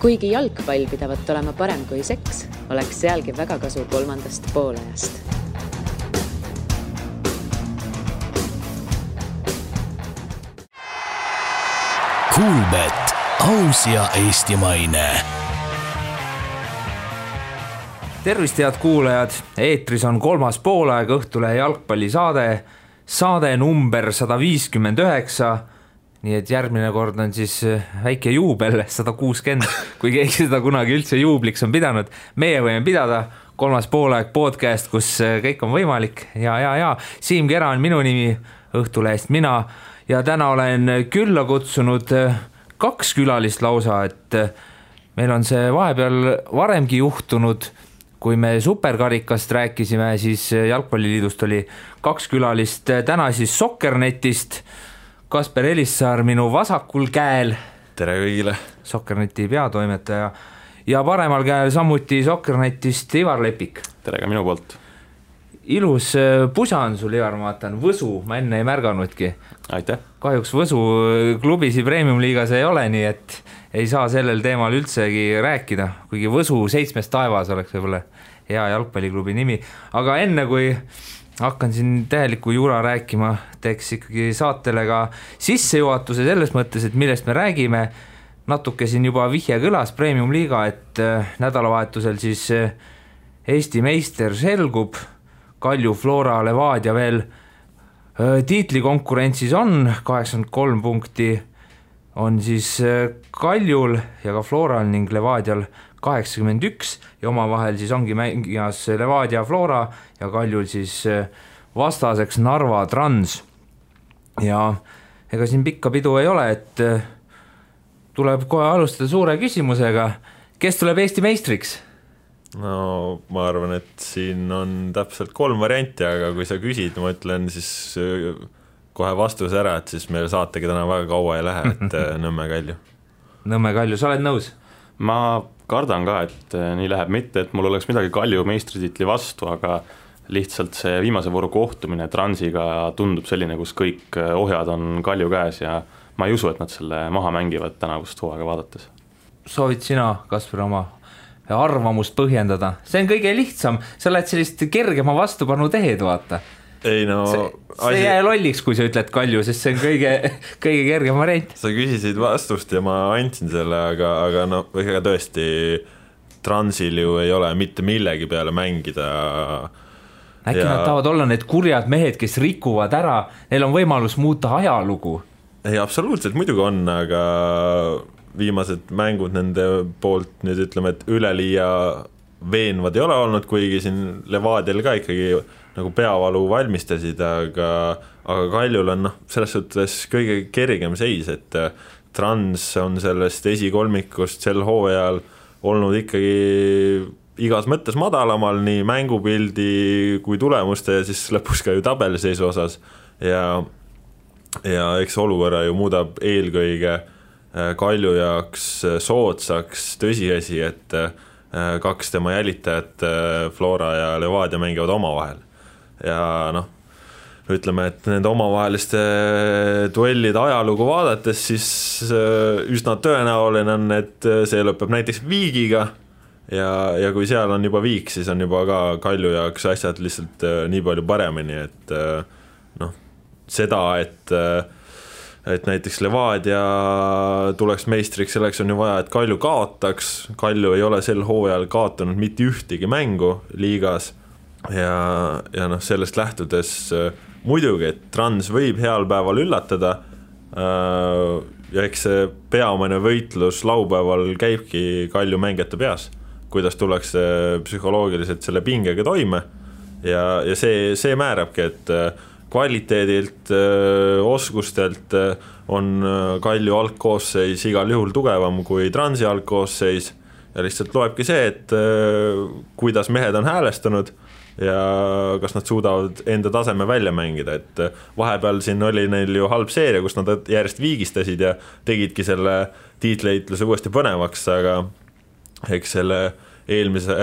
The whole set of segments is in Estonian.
Kuigi jalgpall pidavat olema parem kui seks, oleks sealgi väga kasu kolmandast poolajast. Kuulbet, aus ja eestimaine. Tervist, head kuulajad! Eetris on kolmas poolaeg Õhtulehe jalgpallisaade, saade number 159. Nii et järgmine kord on siis väike juubel, 160, kui keegi seda kunagi üldse juubliks on pidanud. Meie võime pidada kolmas poolaeg podcast, kus kõik on võimalik. Ja. Siim Kera on minu nimi, Õhtulehest mina. Ja täna olen külla kutsunud 2 külalist lausa, et meil on see vahepeal varemgi juhtunud. Kui me superkarikast rääkisime, siis Jalgpalliliidust oli 2 külalist. Täna siis Sokkernetist Kasper Elissaar minu vasakul käel. Tere kõigile. Sokkerneti peatoimetaja. Ja paremal käel samuti Sokkernetist Ivar Lepik. Tere ka minu poolt. Ilus pusa on sul, Ivar, ma vaatan. Võsu, ma enne ei märganudki. Aitäh. Kahjuks Võsu klubisi Premium-liigas ei ole, nii et ei saa sellel teemal üldsegi rääkida. Kuigi Võsu 7 taevas oleks võib-olla hea jalgpalliklubi nimi. Aga enne kui hakkan siin täheliku jura rääkima, teeks ikkagi saatele ka sissejuhatuse selles mõttes, et millest me räägime. Natuke siin juba vihje kõlas Premium-liiga, et nädalavahetusel siis Eesti meister selgub. Kalju, Flora, Levadia veel tiitlikonkurentsis on 83 punkti on siis Kaljul ja ka Floral ning Levadial 81 ja omavahel siis ongi mängijas Levadia, Flora ja Kaljul siis vastaseks Narva Trans. Ja ega siin pikka pidu ei ole, et tuleb kohe alustada suure küsimusega. Kes tuleb Eesti meistriks? No ma arvan, et siin on täpselt 3 varianti, aga kui sa küsid, ma ütlen siis kohe vastuse ära, et siis meil saategi täna väga kaua ei lähe, et Nõmme Kalju. Nõmme Kalju, sa oled nõus? Ma kardan ka, et nii läheb, mitte, et mul oleks midagi Kalju meistritiitli vastu, aga lihtsalt see viimase vooru kohtumine Transiga tundub selline, kus kõik ohjad on Kalju käes ja ma ei usu, et nad selle maha mängivad tänavust hooaega vaadates. Soovid sina, Kasper, oma arvamust põhjendada? See on kõige lihtsam, sa oled sellist kergema vastupanu tehed, vaata. Ei no, see jää lolliks, kui sa ütled Kalju, sest see on kõige kergem variant. Sa küsisid vastust ja ma andsin selle, aga no ega tõesti Transil ju ei ole mitte millegi peale mängida. Äkki nad tahavad olla need kurjad mehed, kes rikuvad ära, neil on võimalus muuta ajalugu. Ei, absoluutselt muidugi on, aga viimased mängud nende poolt nüüd ütleme, et üleliia veenvad ei ole olnud, kuigi siin Levadial ka ikkagi nagu peavalu valmistasid, aga Kaljul on selles suhtes kõige kergem seis, et Trans on sellest esikolmikust sel hooajal olnud ikkagi igas mõttes madalamal, nii mängupildi kui tulemuste ja siis lõpus ka ju tabeliseisu osas ja eks olukorra ju muudab eelkõige Kalju jaoks soodsaks tõsiasi, et 2 tema jälitajat Flora ja Levadia mängivad omavahel. Ja noh, ütleme, et nende omavaheliste duellide ajalugu vaadates, siis üsna tõenäoline on, et see lõpeb näiteks viigiga ja kui seal on juba viik, siis on juba ka Kalju jaoks asjad lihtsalt nii palju paremini, et noh, seda, et näiteks Levadia tuleks meistriks, selleks on ju vaja, et Kalju kaotaks. Kalju ei ole sel hooajal kaotanud mitte ühtegi mängu liigas ja noh, sellest lähtudes muidugi, et Trans võib heal päeval üllatada ja eks see peamine võitlus laupäeval käibki Kalju mängijate peas, kuidas tuleks psühholoogiliselt selle pingega toime ja see määrabki, et kvaliteedilt, oskustelt on Kalju algkoosseis igal juhul tugevam kui Transi algkoosseis ja lihtsalt loebki see, et kuidas mehed on häälestanud ja kas nad suudavad enda taseme välja mängida, et vahepeal siin oli neil ju halb seeria, kus nad järjest viigistasid ja tegidki selle tiitleitluse uuesti põnevaks, aga eks selle eelmise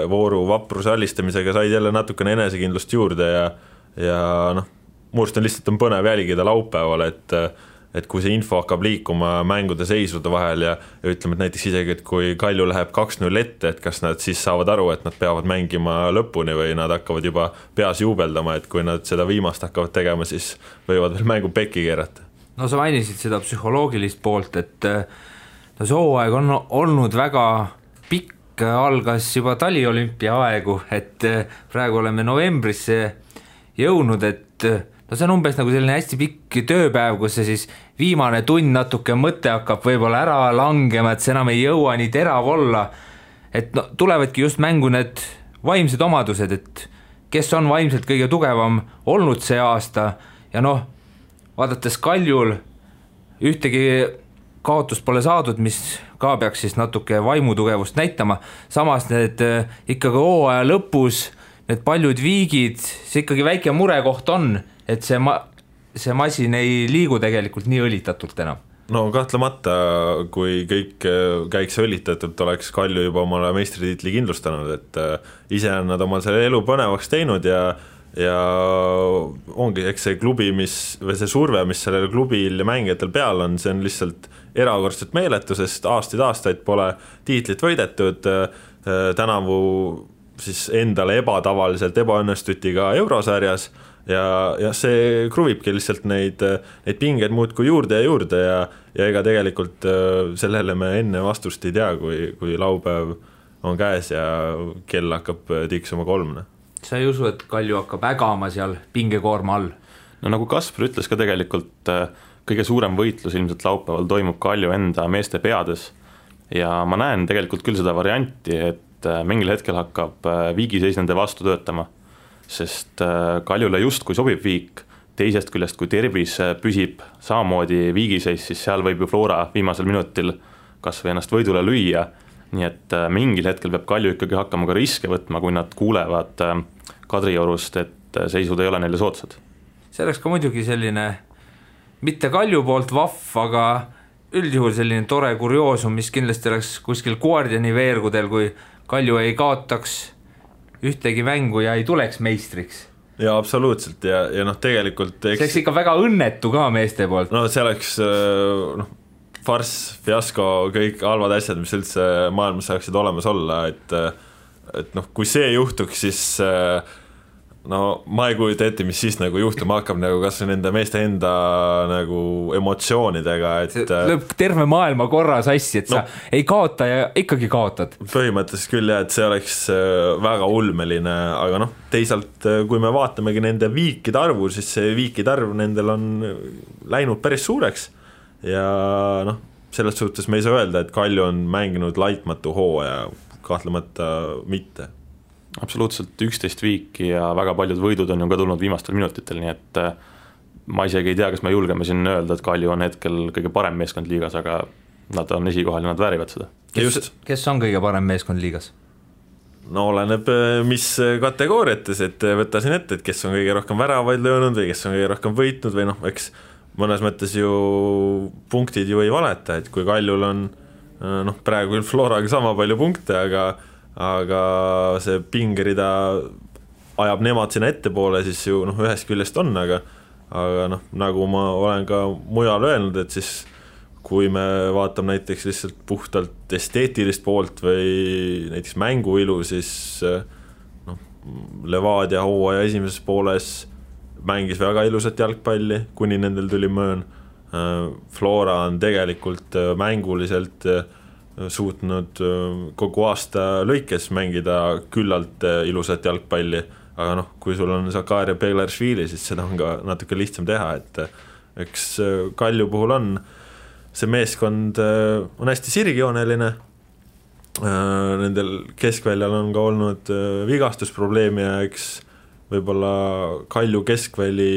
vooru vapruse alistamisega said jälle natukene enesekindlust juurde ja noh, muust on lihtsalt põnev jälgida laupäeval, et kui see info hakkab liikuma mängude seisude vahel ja ütleme, et näiteks isegi, et kui Kalju läheb 2-0 ette, et kas nad siis saavad aru, et nad peavad mängima lõpuni või nad hakkavad juba peas juubeldama, et kui nad seda viimast hakkavad tegema, siis võivad veel mängu pekki keerata. No sa mainisid seda psühholoogilist poolt, et no see hooaeg on olnud väga pikk, algas juba taliolümpia aegu, et praegu oleme novembrisse jõudnud, et no see on umbes nagu selline hästi pikk tööpäev, kus see siis viimane tund natuke mõte hakkab võib-olla ära langema, et see enam ei jõua nii terav olla, et no tulevadki just mängu need vaimsed omadused, et kes on vaimselt kõige tugevam olnud see aasta ja noh, vaadates Kaljul ühtegi kaotust pole saadud, mis ka peaks siis natuke vaimutugevust näitama, samas need ikkagi hooaja lõpus, need paljud viigid, see ikkagi väike murekoht on, et see masin ei liigu tegelikult nii õlitatult enam. No kahtlemata, kui kõik käiks õlitatult, oleks Kalju juba omale meistritiitli kindlustanud, et ise on nad omal selle elu põnevaks teinud ja ongi, eks see klubi, või see surve, mis sellel klubil ja mängijatel peal on, see on lihtsalt erakordselt meeletu, sest aastaid pole tiitlit võidetud, tänavu siis endale ebatavaliselt ebaõnnestuti ka eurosarjas ja see kruvibki lihtsalt neid pingeid muudkui juurde ja ega tegelikult sellele me enne vastust ei tea, kui laupäev on käes ja kell hakkab tiksuma 3. Sa ei usu, et Kalju hakkab ägama seal pingekoorma all? No nagu Kaspar ütles ka tegelikult, kõige suurem võitlus ilmselt laupäeval toimub Kalju enda meeste peades ja ma näen tegelikult küll seda varianti, et mingil hetkel hakkab viigiseis nende vastu töötama, sest Kaljule justkui sobib viik, teisest küljest kui tervis püsib samamoodi viigiseis, siis seal võib ju Flora viimasel minutil kas või ennast võidule lüüa, nii et mingil hetkel peab Kalju ikkagi hakkama ka riske võtma, kui nad kuulevad Kadriorust, et seisud ei ole neile soodsad. See oleks ka muidugi selline, mitte Kalju poolt vahv, aga üldjuhul selline tore kurioosum, mis kindlasti oleks kuskil Guardiani veergudel, kui Kalju ei kaotaks ühtegi mängu ja ei tuleks meistriks. Ja absoluutselt ja noh, tegelikult see oleks ikka väga õnnetu ka meeste poolt. No see oleks farss, fiasko, kõik halvad asjad, mis üldse maailmas saaksid olemas olla, et noh, kui see juhtuks, siis no ma ei kujuta ette, mis siis nagu juhtuma hakkab nagu kas nende meeste enda nagu emotsioonidega, et lööb terve maailma korra sassi, et sa ei kaota ja ikkagi kaotad. Põhimõtteliselt küll jah, et see oleks väga ulmeline, aga noh, teisalt kui me vaatamegi nende viikide arvu, siis see viikide arv nendel on läinud päris suureks ja noh, selles suhtes me ei saa öelda, et Kalju on mänginud laitmatu hooaja, kahtlemata mitte. Absoluutselt 11 viiki ja väga paljud võidud on ju ka tulnud viimastel minutitel, nii et ma isegi ei tea, kas me julgeme siin öelda, et Kalju on hetkel kõige parem meeskond liigas, aga nad on esikohal ja nad väärivad seda. Kes on kõige parem meeskond liigas? No oleneb mis kategooriates, et võta siin ette, et kes on kõige rohkem väravaid löönud või kes on kõige rohkem võitnud või noh, eks mõnes mõttes ju punktid ju ei valeta, et kui Kaljul on noh, praegu küll Floraga sama palju punkte, aga see pingerida ajab nemad sinna ettepoole, siis ju noh, ühest küljest on, aga noh, nagu ma olen ka mujal öelnud, et siis kui me vaatame näiteks lihtsalt puhtalt esteetilist poolt või näiteks mänguilu, siis noh, Levadia hooaja esimeses pooles mängis väga ilusat jalgpalli, kuni nendel tuli möön. Flora on tegelikult mänguliselt suutnud kogu aasta lõikes mängida küllalt ilusat jalgpalli, aga noh, kui sul on Zakaria Beglaršvili, siis seda on ka natuke lihtsam teha, et eks Kalju puhul on see meeskond on hästi sirgjooneline, nendel keskväljal on ka olnud vigastusprobleemi ja eks võib-olla Kalju keskväli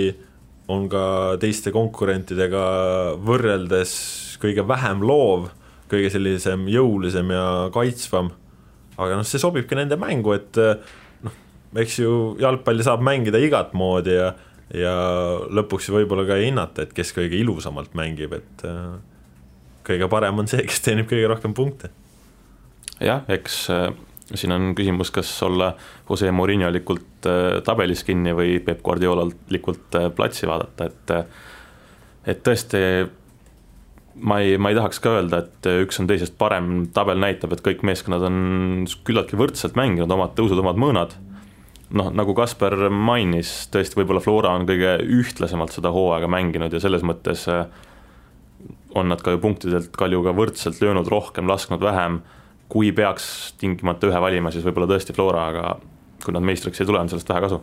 on ka teiste konkurentidega võrreldes kõige vähem loov, kõige sellisem jõulisem ja kaitsvam, aga noh, see sobibki nende mängu, et noh, eks ju jalgpalli saab mängida igat moodi ja lõpuks võib-olla ka ei hinnata, et kes kõige ilusamalt mängib, et kõige parem on see, kes teenib kõige rohkem punkte. Jah, eks siin on küsimus, kas olla Jose Mourinho-likult tabelis kinni või Pep Guardiolalikult platsi vaadata, et tõesti ma ei tahaks ka öelda, et üks on teisest parem, tabel näitab, et kõik meeskonnad on küllaltki võrdselt mänginud, omad tõusud, omad mõõnad. Noh, nagu Kasper mainis, tõesti võib-olla Flora on kõige ühtlasemalt seda hooaega mänginud ja selles mõttes on nad ka ju punktidelt Kaljuga võrdselt löönud rohkem, lasknud vähem. Kui peaks tingimata ühe valima, siis võib-olla tõesti Flora, aga kui nad meistriks ei tule, on sellest vähe kasu.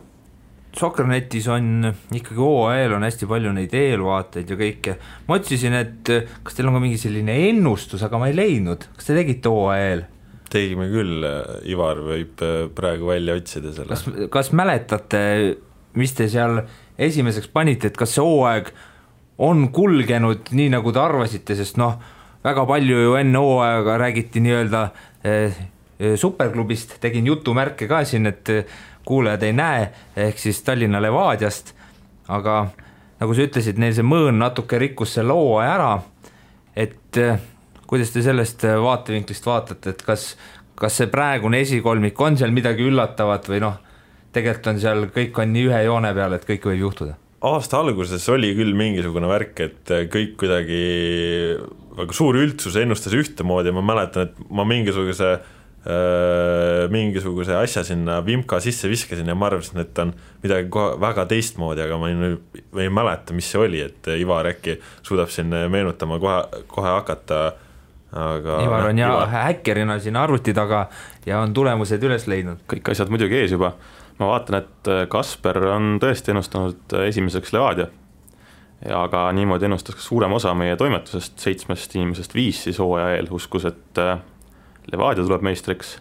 Soccernetis on ikkagi OAL on hästi palju neid eelvaateid ja kõike. Ma otsisin, et kas teil on ka mingi selline ennustus, aga ma ei leidnud. Kas te tegite OAL? Tegime küll, Ivar võib praegu välja otsida selle. Kas mäletate, mis te seal esimeseks panite, et kas see hooaeg on kulgenud nii, nagu te arvasite, sest väga palju ju enne hooaega räägiti nii-öelda superklubist, tegin jutumärke ka siin, et kuulajad ei näe, ehk siis Tallinna Levadiast, aga nagu sa ütlesid, neil see mõõn natuke rikkus selle hooaja ära, et kuidas te sellest vaatevinklist vaatate, et kas see praegune esikolmik on seal midagi üllatavat või tegelikult on seal, kõik on nii ühe joone peal, et kõik võib juhtuda? Aasta alguses oli küll mingisugune värk, et kõik kuidagi väga suur üldsus ennustas ühtemoodi ja ma mäletan, et ma mingisuguse asja sinna Vimka sisse viskasin ja ma arvasin, et on midagi väga teistmoodi, aga ma ei mäleta, mis see oli, et Ivar äkki suudab siin meenutama kohe hakata. Aga Ivar on häkkerina siin arvuti taga ja on tulemused üles leidnud. Kõik asjad muidugi ees juba. Ma vaatan, et Kasper on tõesti ennustanud esimeseks Levadia, aga niimoodi ennustas ka suurem osa meie toimetusest, 7 inimesest 5 siis hooaja eel uskus, et Levadia tuleb meistriks,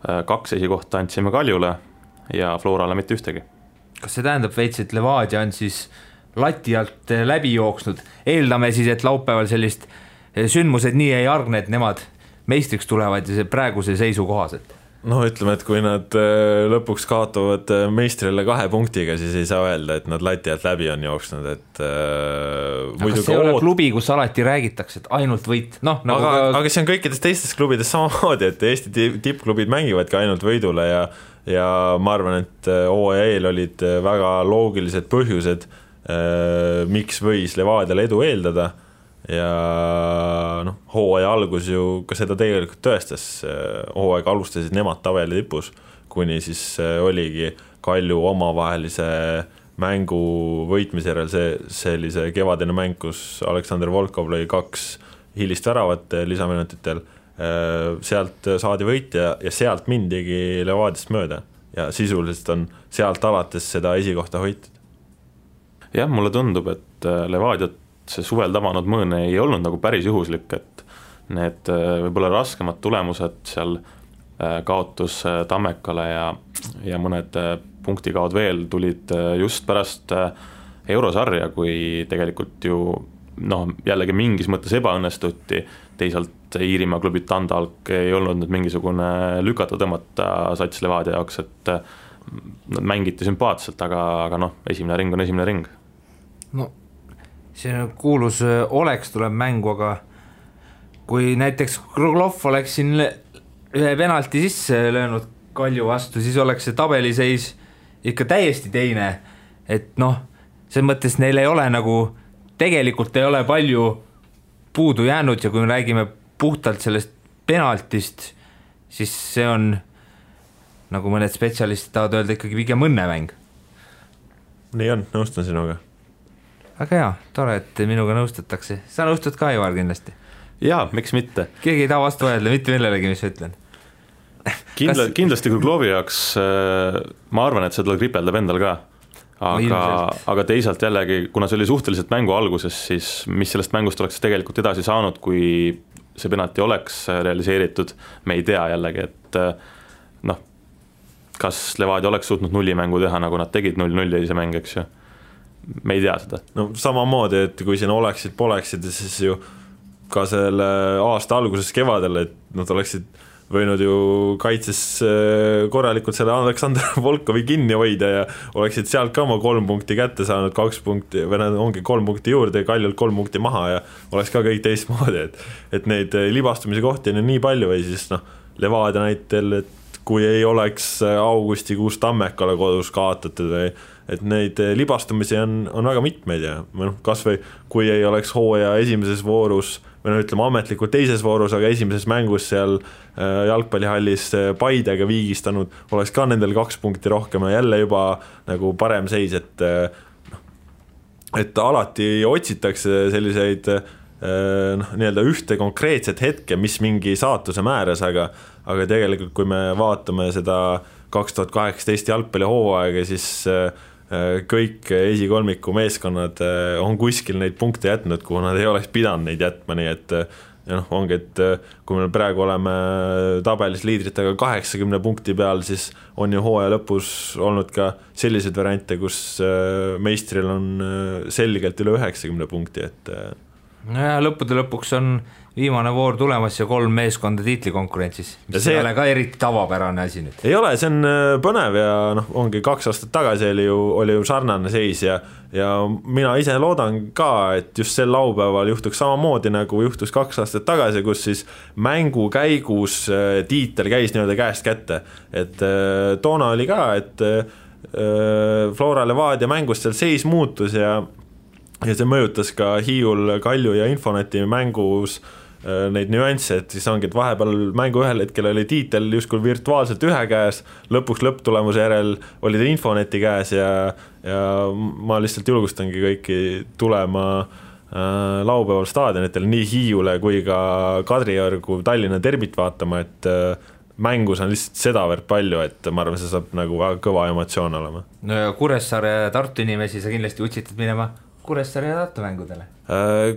2 esikohta andsime Kaljule ja Florale mitte ühtegi. Kas see tähendab veits, et Levadia on siis lati alt läbi jooksnud? Eeldame siis, et laupäeval sellist sündmused nii ei argne, et nemad meistriks tulevad ja see praeguse seisu kohaselt. Ütleme, et kui nad lõpuks kaotavad meistrile 2 punktiga, siis ei saa öelda, et nad lati alt läbi on jooksnud, et aga see ei ole klubi, kus alati räägitakse, et ainult võit. Aga see on kõikides teistes klubides samamoodi, et Eesti tippklubid mängivadki ainult võidule ja ma arvan, et OEL olid väga loogilised põhjused, miks võis Levadiale edu eeldada ja hooaja algus ju ka seda tegelikult tõestas, hooaeg alustasid nemad tabeli tipus, kuni siis oligi Kalju omavahelise mängu võitmise järel sellise kevadine mäng, kus Aleksander Volkov lõi 2 hilist väravat lisaminutitel, sealt saadi võit ja sealt mindigi Levadiast mööda ja sisuliselt on sealt alates seda esikohta hoitud. Jah, mulle tundub, et Levadiat see suvel tabanud mõõn ei olnud nagu päris juhuslik, et need võib-olla raskemad tulemused seal kaotus Tammekale ja mõned punktikaod veel tulid just pärast eurosarja, kui tegelikult ju jällegi mingis mõttes ebaõnnestuti, teisalt Iirimaa klubid Tandalk ei olnud nüüd mingisugune lükata tõmmata sats Levadia jaoks, et nad mängiti sümpaatselt, aga esimene ring on esimene ring. See kuulus oleks tuleb mängu, aga kui näiteks Kruglov oleks siin ühe penalti sisse löönud Kalju vastu, siis oleks see tabeliseis ikka täiesti teine, et see mõttes neil ei ole tegelikult ei ole palju puudu jäänud ja kui me räägime puhtalt sellest penaltist, siis see on, nagu mõned spetsialistid tahavad öelda, ikkagi pigem õnnemäng. Nii on, nõustun sinuga. Aga jaa, tore, et minuga nõustatakse. Sa nõustud ka, Ivar, kindlasti? Jaa, miks mitte? Keegi ei taha vastu öelda, mitte millelegi, mis sa ütlen. Kindlasti Kruglovi jaoks ma arvan, et seda kripeldab endal ka. Aga teisalt jällegi, kuna see oli suhteliselt mängu alguses, siis mis sellest mängust oleks tegelikult edasi saanud, kui see penalti oleks realiseeritud, me ei tea jällegi, et kas Levadia oleks suutnud nullimängu teha, nagu nad tegid 0-0 ja ise mäng, eks ju. Me ei tea seda. Samamoodi, et kui siin poleksid, siis ju ka selle aasta alguses kevadel, et nad oleksid võinud ju kaitses korralikult selle Aleksander Volkovi kinni hoida ja oleksid sealt ka oma 3 punkti kätte saanud, 2 punkti, või ongi 3 punkti juurde ja Kaljult 3 punkti maha ja oleks ka kõik teistmoodi, et neid libastumise kohti on nii palju või siis Levadia näitel, et kui ei oleks augustikuus Tammekale kodus kaotatud et neid libastumisi on väga mitmeid ja kas või kui ei oleks hooaja esimeses voorus või ütleme ametlikult teises voorus, aga esimeses mängus seal jalgpallihallis Paidega viigistanud, oleks ka nendel 2 punkti rohkem ja jälle juba nagu parem seis, et alati otsitakse selliseid nii-öelda ühte konkreetset hetke, mis mingi saatuse määras, aga tegelikult kui me vaatame seda 2018 jalgpallihooaega, siis kõik esikolmiku meeskonnad on kuskil neid punkte jätnud, kuhu nad ei oleks pidanud neid jätma, nii et ongi, et kui me praegu oleme tabelis liidritega 80 punkti peal, siis on ju hooaja lõpus olnud ka selliseid variante, kus meistril on selgelt üle 90 punkti, et ja lõppude lõpuks on viimane voor tulemas ja 3 meeskonda tiitlikonkurentsis, mis ei ole ka eriti tavapärane asi nüüd. Ei ole, see on põnev ja ongi 2 aastat tagasi oli ju sarnane seis ja mina ise loodan ka, et just sel laupäeval juhtuks samamoodi nagu juhtus 2 aastat tagasi, kus siis mängu käigus tiitel käis nii-öelda käest kätte, et toona oli ka, et Flora Levadia mängust seal seis muutus ja see mõjutas ka Hiiul, Kalju ja Infoneti mängus neid nüansse, et siis ongi, et vahepeal mängu ühel hetkel oli tiitel justkui virtuaalselt ühe käes, lõpuks lõpptulemuse järel oli ta Infoneti käes ja ma lihtsalt julgustangi kõiki tulema laupäeval staadionitel nii Hiiule kui ka Kadriorgu Tallinna derbit vaatama, et mängus on lihtsalt sedavõrd palju, et ma arvan, see saab nagu väga kõva emotsioon olema. No ja Kuressaare ja Tartu inimesi sa kindlasti utsitad minema Kuressaare ja Tartu mängudele?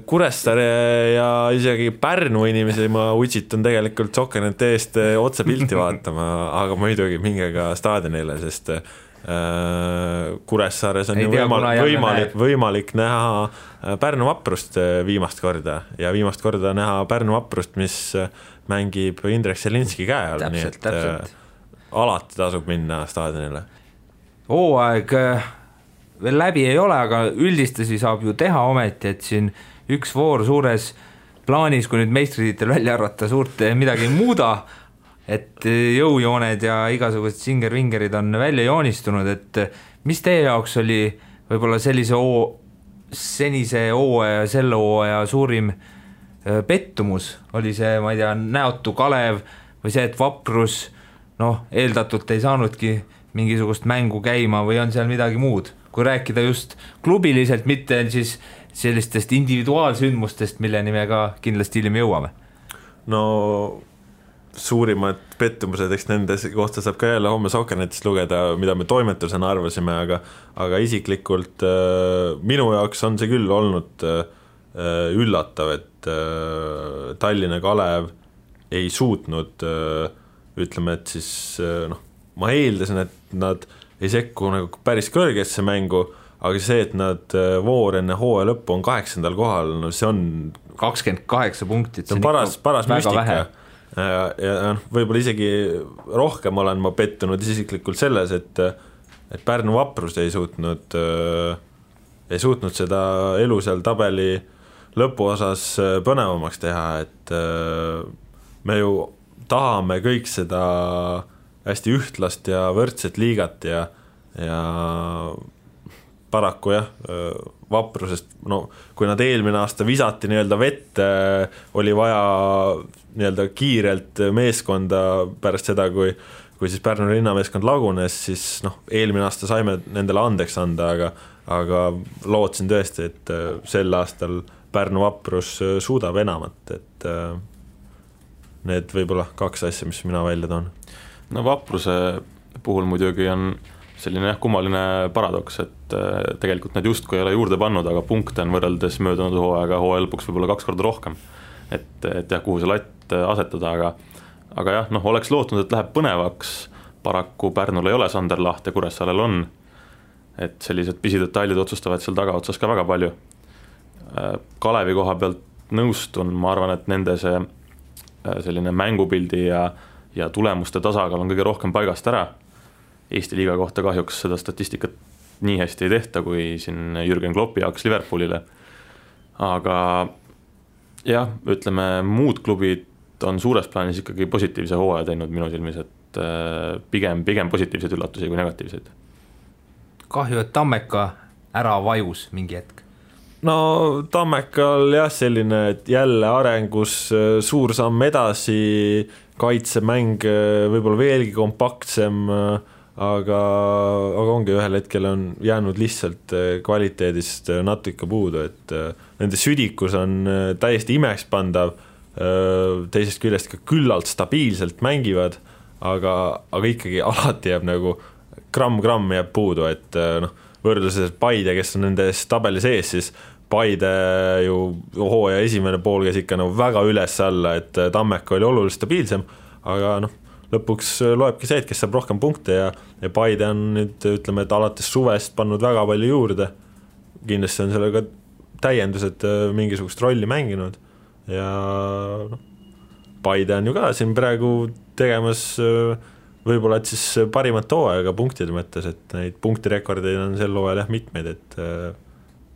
Kuressaare ja isegi Pärnu inimesi ma utsitan tegelikult Sokkenete eest otse pilti vaatama, aga muidugi minge ka staadionile, sest Kuressaares on ju võimalik näha Pärnu Vaprust viimast korda ja viimast korda näha Pärnu Vaprust, mis mängib Indrek Selinski käe all, nii et alati tasub minna staadionile. Hooaeg veel läbi ei ole, aga üldistusi saab ju teha ometi, et siin üks voor suures plaanis, kui nüüd meistritiitel välja arvata, suurt midagi ei muuda, et jõujooned ja igasugused singer-vingerid on välja joonistunud, et mis teie jaoks oli võib-olla senise hooaja ja selle hooaja suurim pettumus? Oli see, ma ei tea, näotu Kalev või see, et Vaprus eeldatult ei saanudki mingisugust mängu käima või on seal midagi muud? Kui rääkida just klubiliselt, mitte siis sellistest individuaalsündmustest, milleni me ka kindlasti hiljem jõuame. No suurimad pettumused, eks nende kohta saab ka jälle homme Sokkenetist lugeda, mida me toimetusena arvasime, aga isiklikult minu jaoks on see küll olnud üllatav, et Tallinna Kalev ei suutnud, ütleme, et siis ma eeldasin, et nad ei sekku nagu päris kõrgesse mängu, aga see, et nad voor enne hooaja lõppu on 8. kohal, see on 28 punkti, see on paras müstika ja võib-olla isegi rohkem olen ma pettunud isiklikult selles, et Pärnu Vaprus ei suutnud seda elu seal tabeli lõpuosas põnevamaks teha, et me ju tahame kõik seda hästi ühtlast ja võrdset liigat ja paraku jah, Vaprusest, kui nad eelmine aasta visati nii-öelda vette, oli vaja nii-öelda kiirelt meeskonda pärast seda, kui siis Pärnu linnameeskond lagunes, siis eelmine aasta saime nendele andeks anda, aga lootsin tõesti, et sel aastal Pärnu Vaprus suudab enamat, et need võib-olla 2 asja, mis mina välja toon. No Vapruse puhul muidugi on selline kummaline paradoks, et tegelikult need justkui ei ole juurde pannud, aga punkte on võrreldes möödunud hooaega lõpuks võib-olla 2 korda rohkem. Et jah, kuhu see latt asetada, aga jah, oleks lootnud, et läheb põnevaks, paraku Pärnul ei ole Sander Laht ja Kuressaarel on, et sellised pisidetailid otsustavad seal tagaotsas ka väga palju. Kalevi koha pealt nõustun, ma arvan, et nende see selline mängupildi ja tulemuste tasakaal on kõige rohkem paigast ära. Eesti liiga kohta kahjuks seda statistikat nii hästi ei tehta, kui siin Jürgen Kloppi jaoks Liverpoolile. Aga jah, ütleme, muud klubid on suures plaanis ikkagi positiivse hooaja teinud minu silmis, et pigem positiivseid üllatusi kui negatiivseid. kahju, et Tammeka ära vajus mingi hetk. No Tammekal jah, selline, et jälle arengus suur samm edasi, kaitsemäng võib-olla veelgi kompaktsem, aga ongi ühel hetkel on jäänud lihtsalt kvaliteedist natuke puudu, et nende südikus on täiesti imekspandav, teisest küljest ka küllalt stabiilselt mängivad, aga ikkagi alati jääb nagu gramm jääb puudu, et võrdluses Paide, kes on nende tabeli sees, siis Paide ju hooaja esimene pool käis ikka väga üles alla, et Tammeka oli oluliselt stabiilsem, aga lõpuks loebki see, et kes saab rohkem punkte ja Paide on nüüd, ütleme, et alates suvest pannud väga palju juurde. Kindlasti on sellega täiendused mingisugust rolli mänginud ja Paide on ju ka siin praegu tegemas võib-olla, et siis parimat hooaega punktide mõttes, et neid punktirekordeid on sel hooajal jah mitmeid, et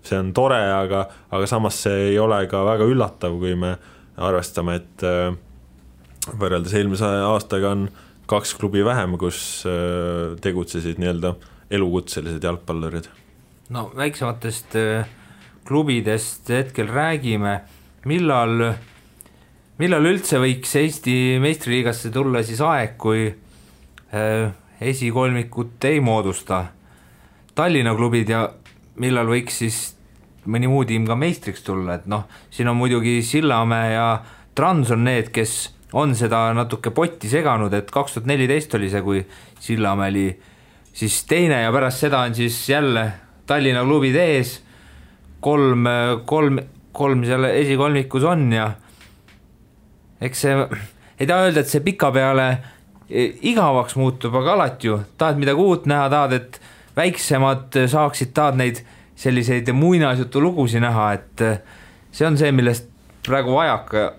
see on tore, aga samas see ei ole ka väga üllatav, kui me arvestame, et võrreldes eelmise aastaga on 2 klubi vähem, kus tegutsesid nii-öelda elukutselised jalgpallurid. No väiksematest klubidest hetkel räägime, millal üldse võiks Eesti meistriliigasse tulla siis aeg, kui esikolmikut ei moodusta Tallinna klubid ja millal võiks siis mõni muu tiim ka meistriks tulla, et siin on muidugi Sillamäe ja Trans on need, kes on seda natuke potti seganud, et 2014 oli see, kui Sillamäe oli siis teine ja pärast seda on siis jälle Tallinna klubid ees, kolm seal esikolmikus on ja eks see, ei taha öelda, et see pika peale igavaks muutub, aga alati ju tahad midagi uut näha, tahad, et väiksemad saaksid, tahad neid selliseid muinasjutu lugusi näha, et see on see, millest praegu vajaka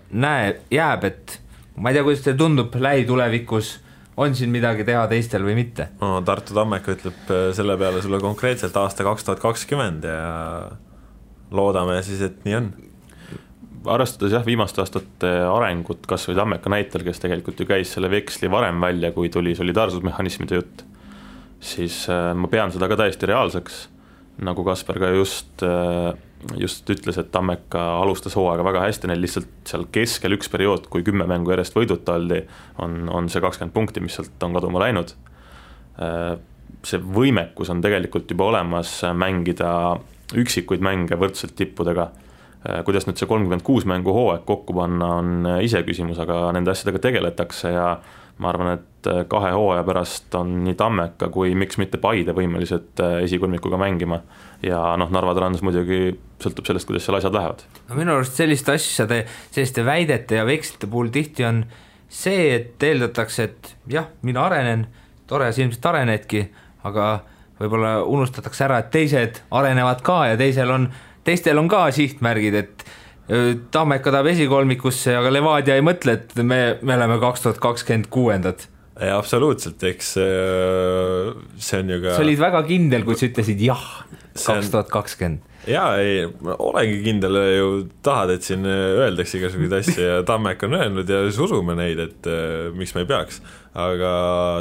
jääb, et ma ei tea, kuidas teil tundub lähitulevikus, on siin midagi teha teistel või mitte? No, Tartu Tammeka ütleb selle peale sulle konkreetselt aasta 2020 ja loodame siis, et nii on. Arvestades jah, viimaste aastate arengut kas või Tammeka näitel, kes tegelikult ju käis selle veksli varem välja, kui tuli solidaarsusmehhanismide jutt, siis ma pean seda ka täiesti reaalseks, nagu Kasper ka just ütles, et Tammeka alustas hooaega väga hästi, neil lihtsalt seal keskel üks periood, kui 10 mängu järjest võiduta oldi, on see 20 punkti, mis sealt on kaduma läinud. See võimekus on tegelikult juba olemas mängida üksikuid mänge võrdselt tippudega. Kuidas nüüd see 36 mängu hooaeg kokku panna on ise küsimus, aga nende asjadega tegeletakse ja ma arvan, et 2 hooaja pärast on nii Tammeka kui miks mitte Paide võimelised esikolmikuga mängima ja Narva Trans muidugi sõltub sellest, kuidas seal asjad lähevad. No minu arust selliste väidete ja vekslite puhul tihti on see, et eeldatakse, et jah, mina arenen, tore, sa ilmselt arenedki, aga võib-olla unustatakse ära, et teised arenevad ka ja teistel on ka sihtmärgid, et Tammeka tahab esikolmikusse, aga Levadia ei mõtle, et me oleme 2026. Ja absoluutselt, eks see on ju ka... Sa olid väga kindel, kui sa ütlesid jah, 2020. Jaa, ei, olengi kindel ju tahad, et siin öeldakse igasuguseid asju ja Tammeka on öelnud ja siis usume neid, et miks me ei peaks. Aga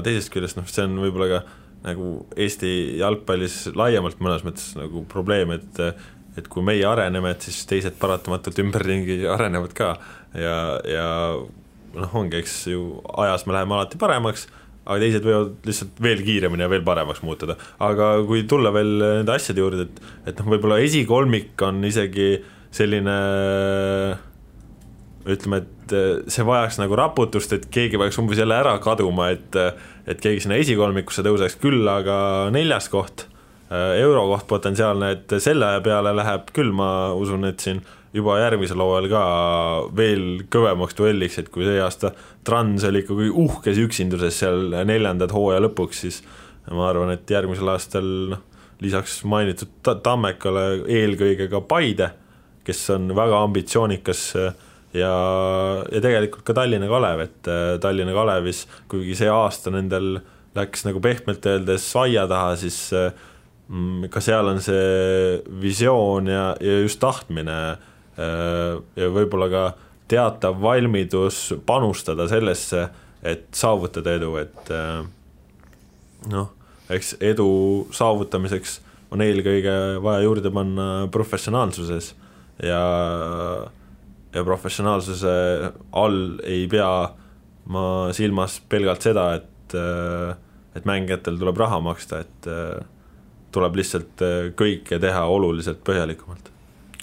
teisest küljest, see on võib-olla ka nagu Eesti jalgpallis laiemalt mõnes mõttes nagu probleem, et kui meie areneme, et siis teised paratamatult ümberringi arenevad ka ja ongi, eks ju ajas me läheme alati paremaks, aga teised võivad lihtsalt veel kiiremini ja veel paremaks muutuda. Aga kui tulla veel nende asjade juurde, et võib-olla esikolmik on isegi selline, ütleme, et see vajaks nagu raputust, et keegi vajaks umbes jälle ära kaduma, et keegi sinna esikolmikusse tõuseks küll, aga 4. koht, eurokoht potentsiaalne, et selle peale läheb küll, ma usun, et siin juba järgmisel hooajal ka veel kõvemaks duelliks, et kui see aasta Trans oli ikkagi uhkes üksinduses seal 4. hooaja lõpuks, siis ma arvan, et järgmisel aastal lisaks mainitud Tammekale eelkõige ka Paide, kes on väga ambitsioonikas ja tegelikult ka Tallinna Kalev, et Tallinna Kalevis, kuigi see aasta nendel läks nagu pehmelt öeldes aia taha, siis ka seal on see visioon ja just tahtmine ja võib-olla ka teatav valmidus panustada sellesse, et saavutada edu, et eks edu saavutamiseks on eelkõige vaja juurde panna professionaalsuses ja professionaalsuse all ei pea ma silmas pelgalt seda, et mängijatel tuleb raha maksta, et tuleb lihtsalt kõike teha oluliselt põhjalikumalt.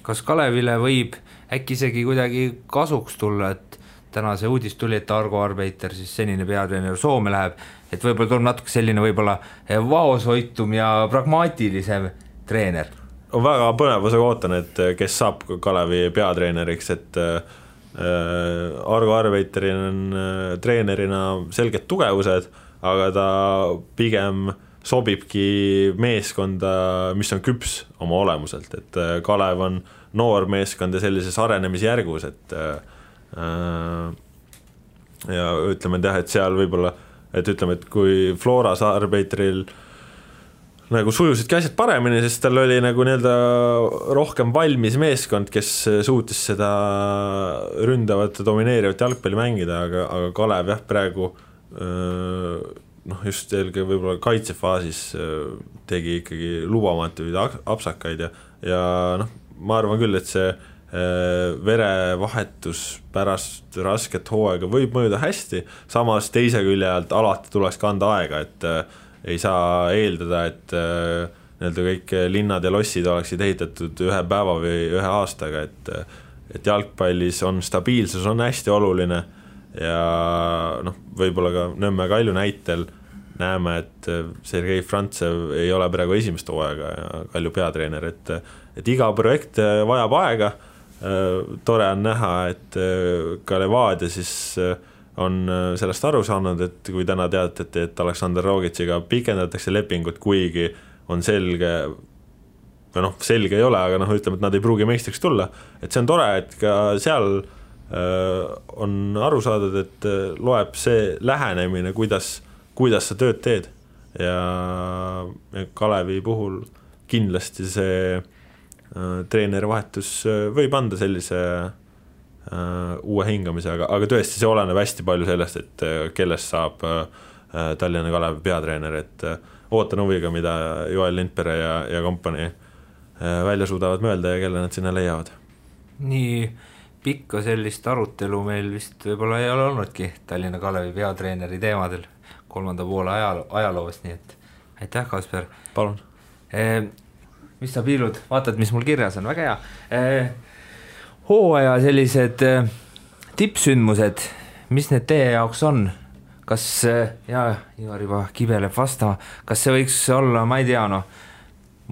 Kas Kalevile võib äkki isegi kuidagi kasuks tulla, et täna see uudis tuli, et Argo Arbeiter, siis senine peatreener Soome läheb, et võib-olla tuleb natuke selline võib-olla vaoshoitum ja pragmaatilisem treener? On väga põnevusega ootan, et kes saab Kalevi peatreeneriks, et Argo Arbeiterin on treenerina selged tugevused, aga ta pigem sobibki meeskonda, mis on küps oma olemuselt, et Kalev on noor meeskond ja sellises arenemisjärgus, et ja ütleme, et seal võib-olla, et ütleme, et kui Floras Arbeiteril nagu sujusidki asjad paremini, sest tal oli nagu nii-öelda rohkem valmis meeskond, kes suutis seda ründavat ja domineerivat jalgpalli mängida, aga Kalev jah, praegu just eelkõige võib-olla kaitsefaasis tegi ikkagi lubamatuid apsakaid ja ma arvan küll, et see verevahetus pärast rasket hooaega võib mõjuda hästi, samas teise külje alt alati tuleks kanda aega, et ei saa eeldada, et nii-öelda kõik linnad ja lossid oleksid ehitatud ühe päeva või ühe aastaga, et jalgpallis on stabiilsus on hästi oluline ja võib-olla ka Nõmme Kalju näitel näeme, et Sergei Frantsev ei ole praegu esimest hooaega ja Kalju peatreener, et iga projekt vajab aega. Tore on näha, et ka Levadia siis on sellest aru saanud, et kui täna teatati, et Aleksandr Rogitsiga pikendatakse lepingut, kuigi on selge või selge ei ole, aga ütleme, et nad ei pruugi meistriks tulla, et see on tore, et ka seal on aru saadud, et loeb see lähenemine, kuidas sa tööd teed ja Kalevi puhul kindlasti see treenerivahetus võib anda sellise uue hingamise, aga tõesti see oleneb hästi palju sellest, et kellest saab Tallinna Kalevi peatreener, et ootan huviga, mida Joel Lindpere ja kompanii välja suudavad mõelda ja kelle nad sinna leiavad. Nii pikka sellist arutelu meil vist võib-olla ei ole olnudki Tallinna Kalevi peatreeneri teemadel 3. poole ajaloost, nii et aitäh, Kasper. Palun. Mis sa piilud, vaatad, mis mul kirjas on, väga hea. Hooaja sellised tippsündmused, mis need teie jaoks on? Kas, Ivar juba kibeleb vastama, kas see võiks olla, ma ei tea,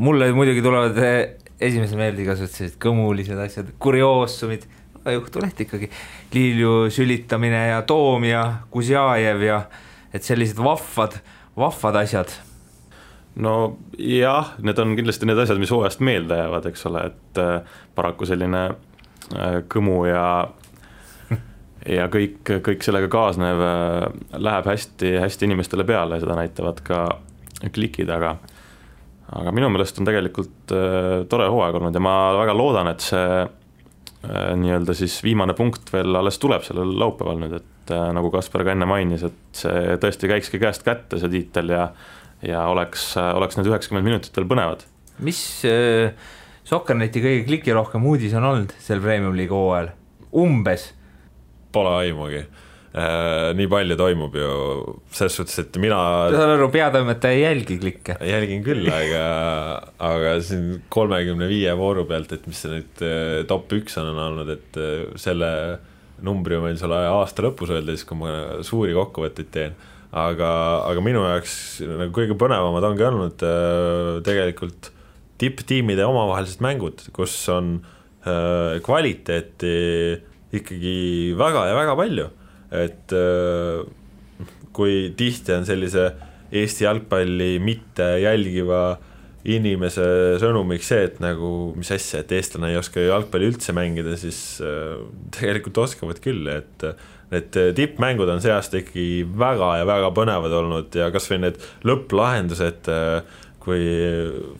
mulle muidugi tulevad esimese meelde igasugused kõmulised asjad, kurioosumid, juhtuleht ikkagi, Liilju sülitamine ja Toom ja Kuzjajev ja et sellised vahvad asjad. No jah, need on kindlasti need asjad, mis hooajast meelde jäävad, eks ole, et paraku selline kõmu ja kõik sellega kaasnev läheb hästi inimestele peale, seda näitavad ka klikid, aga minu meelest on tegelikult tore hooaeg olnud ja ma väga loodan, et see nii-öelda siis viimane punkt veel alles tuleb sellel laupäeval nüüd, et nagu Kasper ka enne mainis, et see tõesti käikski käest kätte see tiitel ja oleks need 90 minutit veel põnevad. Mis Sokkerneti kõige klikirohkem uudis on olnud sel Premium League hooajal? Umbes? Pole aimugi. Nii palju toimub ju selles suhtes, et mina peatoimetaja ei jälgi klikke. Jälgin küll, aga siin 35 vooru pealt, et mis see nüüd top 1 on olnud, et selle numbri meil selle aasta lõpus öelda, siis kui ma suuri kokkuvõtteid teen, aga minu jaoks nagu kõige põnevamad ongi olnud tegelikult tipptiimide omavahelised mängud, kus on kvaliteeti ikkagi väga ja väga palju, et kui tihti on sellise Eesti jalgpalli mitte jälgiva inimese sõnumiks see, et nagu mis asja, et eestlane ei oska jalgpalli üldse mängida, siis tegelikult oskavad küll, et need tippmängud on see aasta ikkagi väga ja väga põnevad olnud ja kas või need lõpplahendused, kui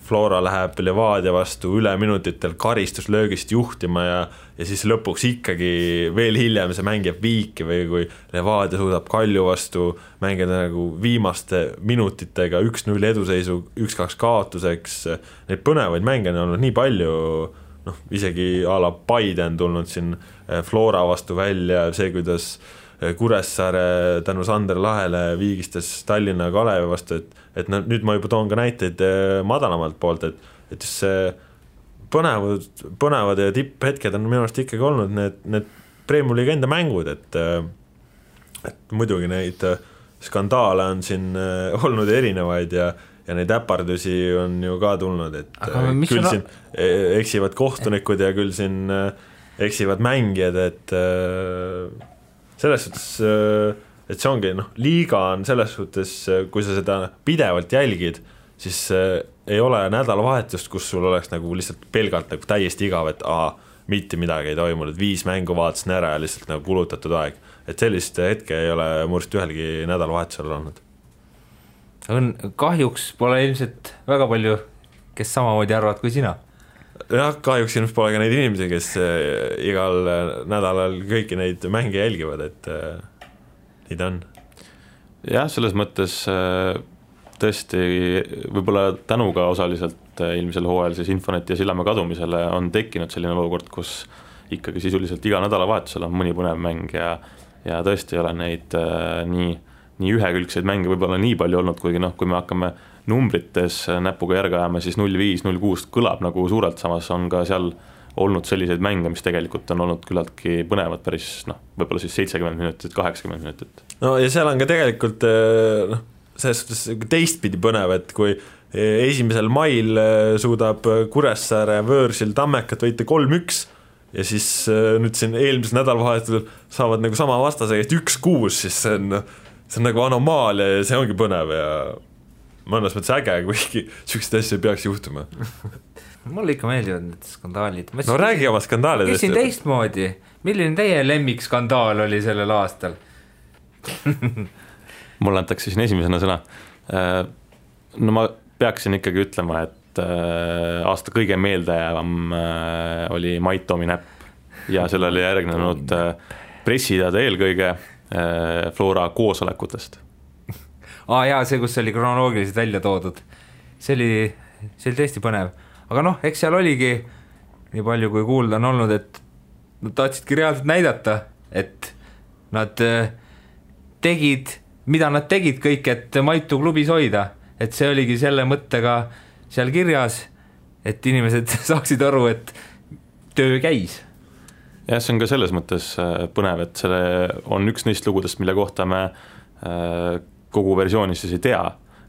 Flora läheb Levadia vastu üle minutitel karistuslöögist juhtima ja siis lõpuks ikkagi veel hiljem see mäng jääb viiki või kui Levadia suudab Kalju vastu mängida nagu viimaste minutitega 1-0 eduseisu 1-2 kaotuseks, neid põnevaid mänge on olnud nii palju, isegi a la Paide on tulnud siin Flora vastu välja, see kuidas Kuressaare tänu Sander Lahele viigistas Tallinna Kalevi vastu, et nüüd ma juba toon ka näiteid madalamalt poolt, et just see põnevad ja tipphetked on minu arust ikkagi olnud need Premiumi liiga enda mängud, et muidugi neid skandaale on siin olnud erinevaid ja neid äpardusi on ju ka tulnud, et küll siin eksivad kohtunikud ja küll siin eksivad mängijad, et selles suhtes, et see ongi, liiga on selles suhtes, kui sa seda pidevalt jälgid, siis ei ole nädalavahetust, kus sul oleks nagu lihtsalt pelgalt nagu täiesti igav, et mitte midagi ei toimunud, 5 mängu vaatasin ära ja lihtsalt nagu kulutatud aeg. Et sellist hetke ei ole murst ühelgi nädalavahetusel olnud. Kahjuks pole ilmselt väga palju, kes samamoodi arvad kui sina. Jah, kahjuks ilmselt pole ka neid inimesi, kes igal nädalal kõiki neid mänge jälgivad, et nii ta on. Jah, selles mõttes tõesti võib-olla tänuga osaliselt ilmisel hooajal siis Infonet ja Sillamäe kadumisele on tekkinud selline olukord, kus ikkagi sisuliselt iga nädalavahetusel on mõni põnev mäng ja tõesti ei ole neid nii ühekülgseid mänge võib-olla nii palju olnud, kuigi kui me hakkame numbrites näpuga järge ajama, siis 0-5, 0-6 kõlab nagu suurelt, samas on ka seal olnud selliseid mänge, mis tegelikult on olnud küllaltki põnevad päris, võib-olla siis 70 minutit, 80 minutit. No ja seal on ka tegelikult selles suhtes teistpidi põnev, et kui 1. mail suudab Kuressaare Võõrsil Tammekat võita 3-1 ja siis nüüd siin eelmisel nädalavahetusel saavad nagu sama vastase käest 1-6, siis see on nagu anomaalia ja see ongi põnev ja mõnes mõttes äge, kuigi sellised asja ei peaks juhtuma. Mulle ikka meeldivad need skandaalid. No räägi oma skandaalidest. Küsin teistmoodi. Milline teie lemmikskandaal oli sellel aastal? Mulle antakse siin esimesena sõna. No ma peaksin ikkagi ütlema, et aasta kõige meeldejäävam oli Mait Toomi näpp ja selle oli järgnenud pressiteade eelkõige Flora koosolekutest. Jaa, see, kus oli kronoloogiliselt välja toodud. See oli tõesti põnev. Aga eks seal oligi nii palju, kui kuulda on olnud, et nad tahtsidki reaalselt näidata, et nad tegid, mida nad tegid kõik, et Maitu klubis hoida. Et see oligi selle mõttega seal kirjas, et inimesed saaksid aru, et töö käis. Ja see on ka selles mõttes põnev, et selle on üks neist lugudest, mille kohta me kogu versioonis siis ei tea,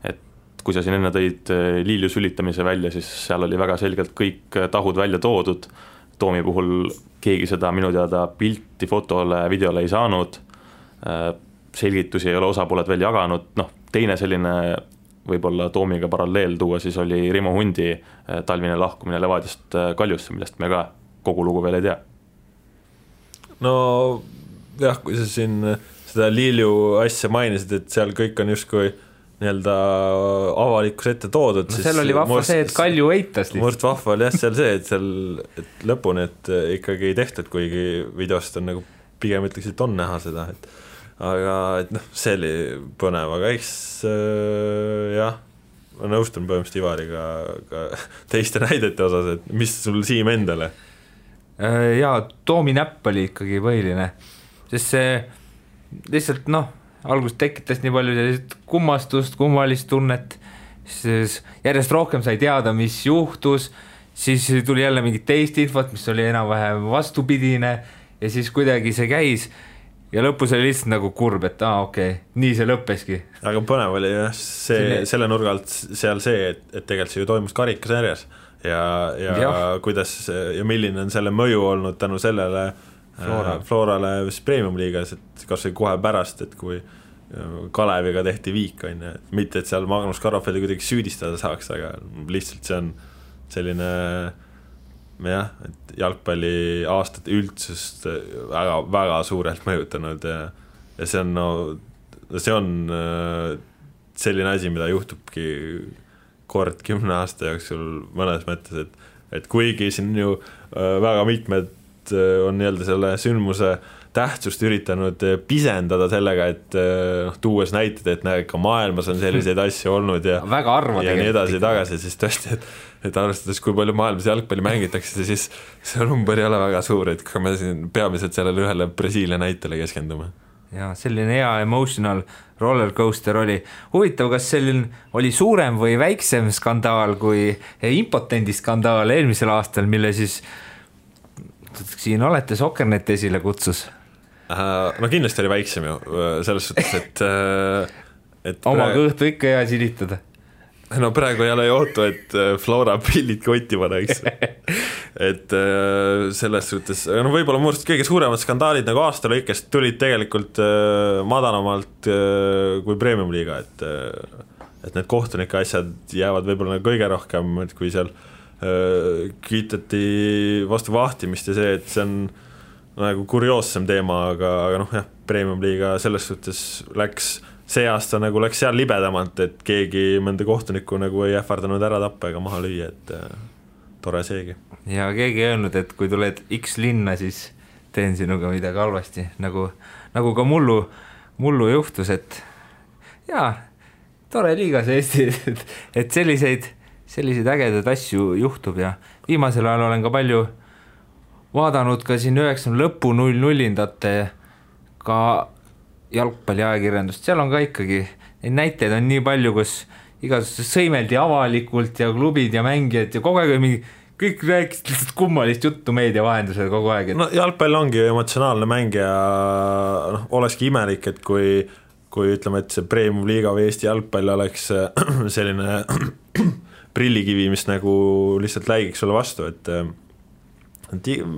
et kui sa siin enne tõid Liilju sülitamise välja, siis seal oli väga selgelt kõik tahud välja toodud, Toomi puhul keegi seda minu teada pilti, fotole, videole ei saanud, selgitusi ei ole osapooled veel jaganud, teine selline võib-olla Toomiga paralleel tuua, siis oli Rimo Hundi talvine lahkumine Levadiast Kaljusse, millest me ka kogu lugu veel ei tea. No jah, kui sa siin seda Liilju asja mainisid, et seal kõik on justkui nii-öelda avalikus ette toodud. Seal oli vahva see, et Kalju eitas lihtsalt. Murst vahva oli jah seal see, et lõpuni, et ikkagi ei tehtud, kuigi videost on nagu pigem ütleks, et on näha seda, aga see oli põnev, aga eks jah, ma nõustun põhimõtteliselt Ivariga ka teiste näidete osas, et mis sul Siim endale? Jaa, Toomi näpp oli ikkagi põhiline, sest see lihtsalt alguses tekitas nii palju kummastust, kummalist tunnet, siis järjest rohkem sai teada, mis juhtus, siis tuli jälle mingit teist infot, mis oli enam-vähem vastupidine ja siis kuidagi see käis ja lõpus oli lihtsalt nagu kurb, et okei, nii see lõppeski. Aga põnev oli jah, selle nurga alt seal see, et tegelikult see ju toimus karikasarjas ja kuidas ja milline on selle mõju olnud tänu sellele Florale Premium liigas, et kas või kohe pärast, et kui Kaleviga tehti viik, mitte et seal Magnus Karafeli kuidagi süüdistada saaks, aga lihtsalt see on selline jah, et jalgpalli aastate üldsust väga, väga suurelt mõjutanud ja see on selline asi, mida juhtubki kord 10 aasta jooksul mõnes mõttes, et kuigi siin ju väga mitmed on nii-öelda selle sündmuse tähtsust üritanud pisendada sellega, et tuues näited, et näe, ka maailmas on selliseid asju olnud ja väga harva ja nii edasi tagasi, siis tõesti, et arvestades, kui palju maailmas jalgpalli mängitakse, siis see number ei ole väga suur, et kui me siin peamiselt sellele ühele Brasiilia näitele keskendume. Ja selline hea emotional rollercoaster oli. Huvitav, kas selline oli suurem või väiksem skandaal kui impotendi skandaal eelmisel aastal, mille siis siin olete Soccernet esile kutsus? No kindlasti oli väiksem ju, selles suhtes, et oma kõhtu ikka hea silitada. No praegu ei ole ju ootu, et Flora pillid kotti paneks. Et selles suhtes, no võib-olla muust kõige suuremad skandaalid nagu aasta lõikest tulid tegelikult madalamalt kui Premium-liiga, et need kohtunike asjad jäävad võib-olla kõige rohkem, et kui seal kiitati vastu vahtimist ja see, et see on nagu kurioossem teema, aga noh jah, Premium-liiga selles suhtes see aasta nagu läks seal libedamalt, et keegi mõnda kohtunikku nagu ei ähvardanud ära tappa ega maha lüüa, et tore seegi. Ja keegi ei öelnud, et kui tuled X linna, siis teen sinuga midagi halvasti, nagu ka mullu juhtus, et jaa, tore liigas Eesti, et selliseid ägedaid asju juhtub ja viimasel ajal olen ka palju vaadanud ka siin 90 lõpu 0-0-indate ka jalgpalliajakirjandust, seal on ka ikkagi, neid näiteid on nii palju, kus igasugustes sõimeldi avalikult ja klubid ja mängijad ja kogu aeg mingi, kõik rääkisid lihtsalt kummalist juttu meedia vahendusel kogu aeg. No jalgpall ongi emotsionaalne mäng ja olekski imelik, et kui ütleme, et see Premium-liiga või Eesti jalgpall oleks selline prillikivi, mis nagu lihtsalt läigiks sulle vastu, et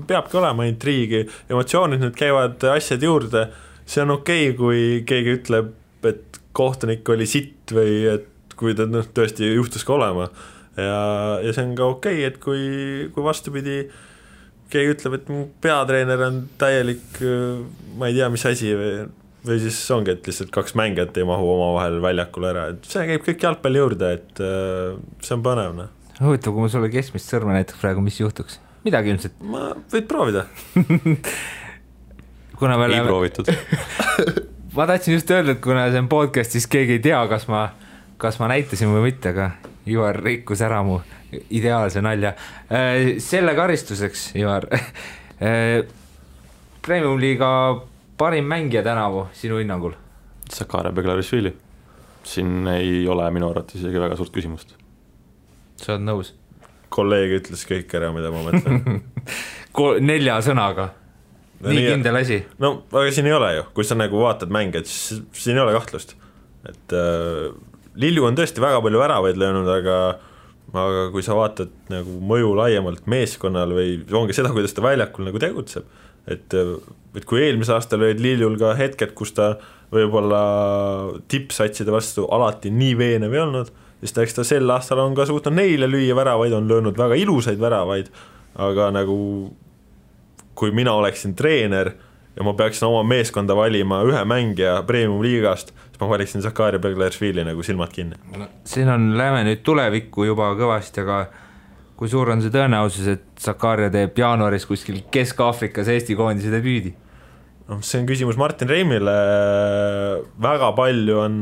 peabki olema intriigi, emotsioonid nüüd käivad asjad juurde, see on okei, kui keegi ütleb, et kohtunik oli sitt või et kui ta tõesti juhtus ka olema ja see on ka okei, et kui vastupidi keegi ütleb, et mu peatreener on täielik, ma ei tea, mis asi või siis ongi, et lihtsalt kaks mängijat ei mahu oma vahel väljakule ära, et see käib kõik jalgpalli juurde, et see on põnevne. Huvitav, kui ma sulle keskmist sõrme näiteks praegu, mis juhtuks? Midagi ilmselt. Ma võid proovida. Ei proovitud. Ma tahtsin just öelda, et kuna see on podcast, siis keegi ei tea, kas ma näitasin või mitte, aga Ivar rikkus ära mu ideaalse nalja. Selle karistuseks, Ivar, Premium-liiga parim mängija tänavu sinu hinnangul? Sakarja Beglarishvili. Siin ei ole minu arvates isegi väga suurt küsimust. Sa oled nõus? Kolleeg ütles kõik ära, mida ma mõtlen. 4 sõnaga. Nii kindel asi. No, aga siin ei ole ju. Kui sa nagu vaatad mänge, et siin ei ole kahtlust. Et Lilju on tõesti väga palju väravaid löönud, aga kui sa vaatad nagu mõju laiemalt meeskonnal või ongi seda, kuidas ta väljakul nagu tegutseb, et kui eelmise aastal olid Liljul ka hetked, kus ta võib-olla tippsatside vastu alati nii veenev ei olnud, siis eks ta sel aastal on ka suutnud neile lüüa väravaid, on löönud väga ilusaid väravaid, aga nagu kui mina oleksin treener ja ma peaksin oma meeskonda valima ühe mängija Premium-liigast, siis ma valiksin Sakarja Beglarishvili nagu silmad kinni. Siin läheme nüüd tulevikku juba kõvasti, aga kui suur on see tõenäosus, et Sakarja teeb jaanuaris kuskil Kesk-Aafrikas Eesti koondise debüüdi? No, see on küsimus Martin Reimile, väga palju on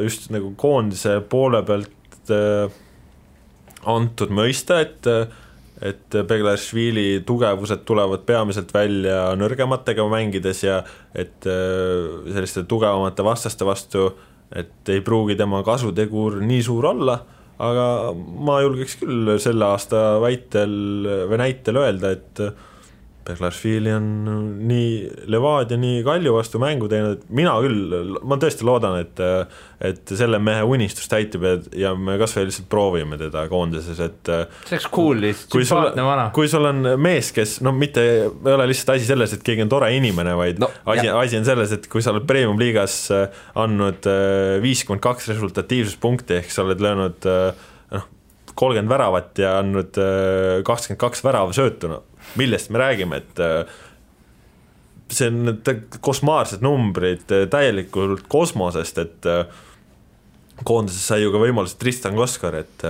just nagu koondise poole pealt antud mõista, et Beglarishvili tugevused tulevad peamiselt välja nõrgematega mängides ja et selliste tugevamate vastaste vastu, et ei pruugi tema kasutegur nii suur olla, aga ma julgeks küll selle aasta näitel öelda, et Beglarishvili on nii Levadia, nii Kalju vastu mängu teinud, et mina küll, ma tõesti loodan, et selle mehe unistus täitub ja me kas või lihtsalt proovime teda koondises, et see oleks cool, sümpaatne vana. Kui sul on mees, kes, no mitte ei ole lihtsalt asi selles, et keegi on tore inimene, vaid asi on selles, et kui sa oled Premium-liigas andnud 52 resultatiivsuspunkti, ehk sa oled löönud 30 väravat ja andnud 22 värava söötuna, millest me räägime, et see on kosmaarsed numbrid täielikult kosmosest, et koondises sai ju ka võimalus Tristan Koskar, et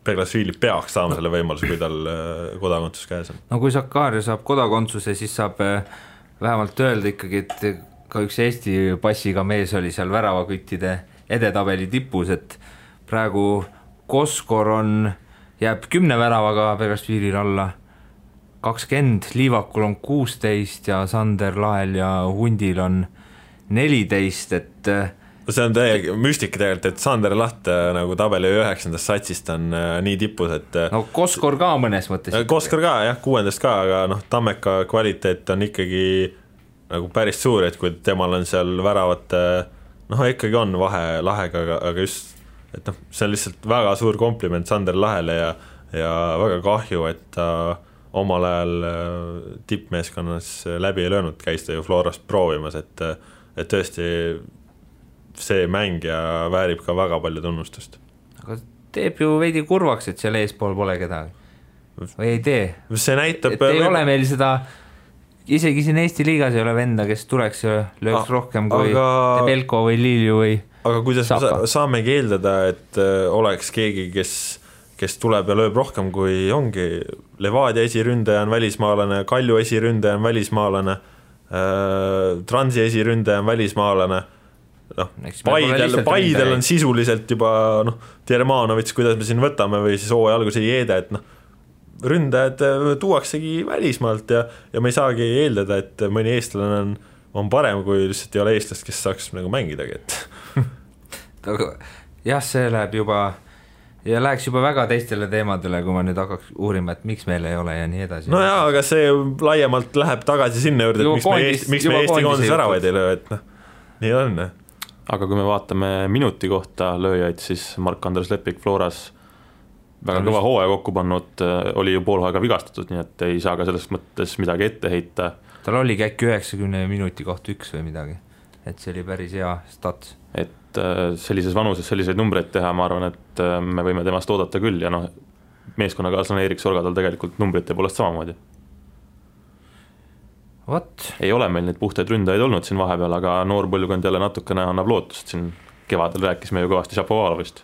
Beglasvili peaks saama selle võimaluse, kui tal kodakondsus käes on. No kui Sakarja saab kodakondsuse, siis saab vähemalt öelda ikkagi, et ka üks Eesti passiga mees oli seal väravaküttide edetabeli tipus, et praegu Koskor jääb 10 väravaga Beglasvilil alla 20, Liivakul on 16 ja Sander Lael ja Hundil on 14, et see on täiega müstika tegelikult, et Sander Laht nagu tabeli 9. satsist on nii tipus, et no Koskor ka mõnes mõttes. Koskor ka, jah, 6. ka, aga Tammeka kvaliteet on ikkagi nagu päris suur, et kui temal on seal väravate, ikkagi on vahe lahega, aga just, et see on lihtsalt väga suur kompliment Sander Lahele ja väga kahju, et ta omal ajal tippmeeskonnas läbi ei löönud, käis ta ju Florast proovimas, et tõesti see mängija väärib ka väga palju tunnustust. Aga teeb ju veidi kurvaks, et seal eespool pole kedagi. Või ei tee? See näitab... Et ei ole meil seda, isegi siin Eesti liigas ei ole venda, kes tuleks ja lööks rohkem kui Tebelko või Lilju või Aga kuidas Sapa. saamegi eeldada, et oleks keegi, kes tuleb ja lööb rohkem, kui ongi Levadia esiründaja on välismaalane, Kalju esiründaja on välismaalane, Transi esiründaja on välismaalane, Paidel on sisuliselt juba Tjermanovits, kuidas me siin võtame, või siis hooaja alguse Jeede, et ründajad tuuaksegi välismaalt ja me ei saagi eeldada, et mõni eestlane on parem, kui lihtsalt ei ole eestlast, kes saaks nagu mängidagi, et jah, see läheb juba ja läheks juba väga teistele teemadele, kui ma nüüd hakkaks uurima, et miks meil ei ole ja nii edasi. No jaa, aga see laiemalt läheb tagasi sinna juurde, et miks me Eesti koondise väravaid ei löö, et nii on. Aga kui me vaatame minuti kohta lööjaid, siis Mark-Andres Lepik Floras väga kõva hooaja kokku pannud, oli ju poolhooaega vigastatud, nii et ei saa ka selles mõttes midagi ette heita. Tal oligi äkki 90 minuti kohta 1 või midagi, et see oli päris hea stats. Et sellises vanuses selliseid numbreid teha, ma arvan, et me võime temast oodata küll ja meeskonnakaaslane Erik Sorga tal tegelikult numbrite poolest samamoodi. Ei ole meil neid puhtaid ründajaid olnud siin vahepeal, aga noor põlvkond jälle natukene annab lootust, siin kevadel rääkisime ju kõvasti Šapovalovist.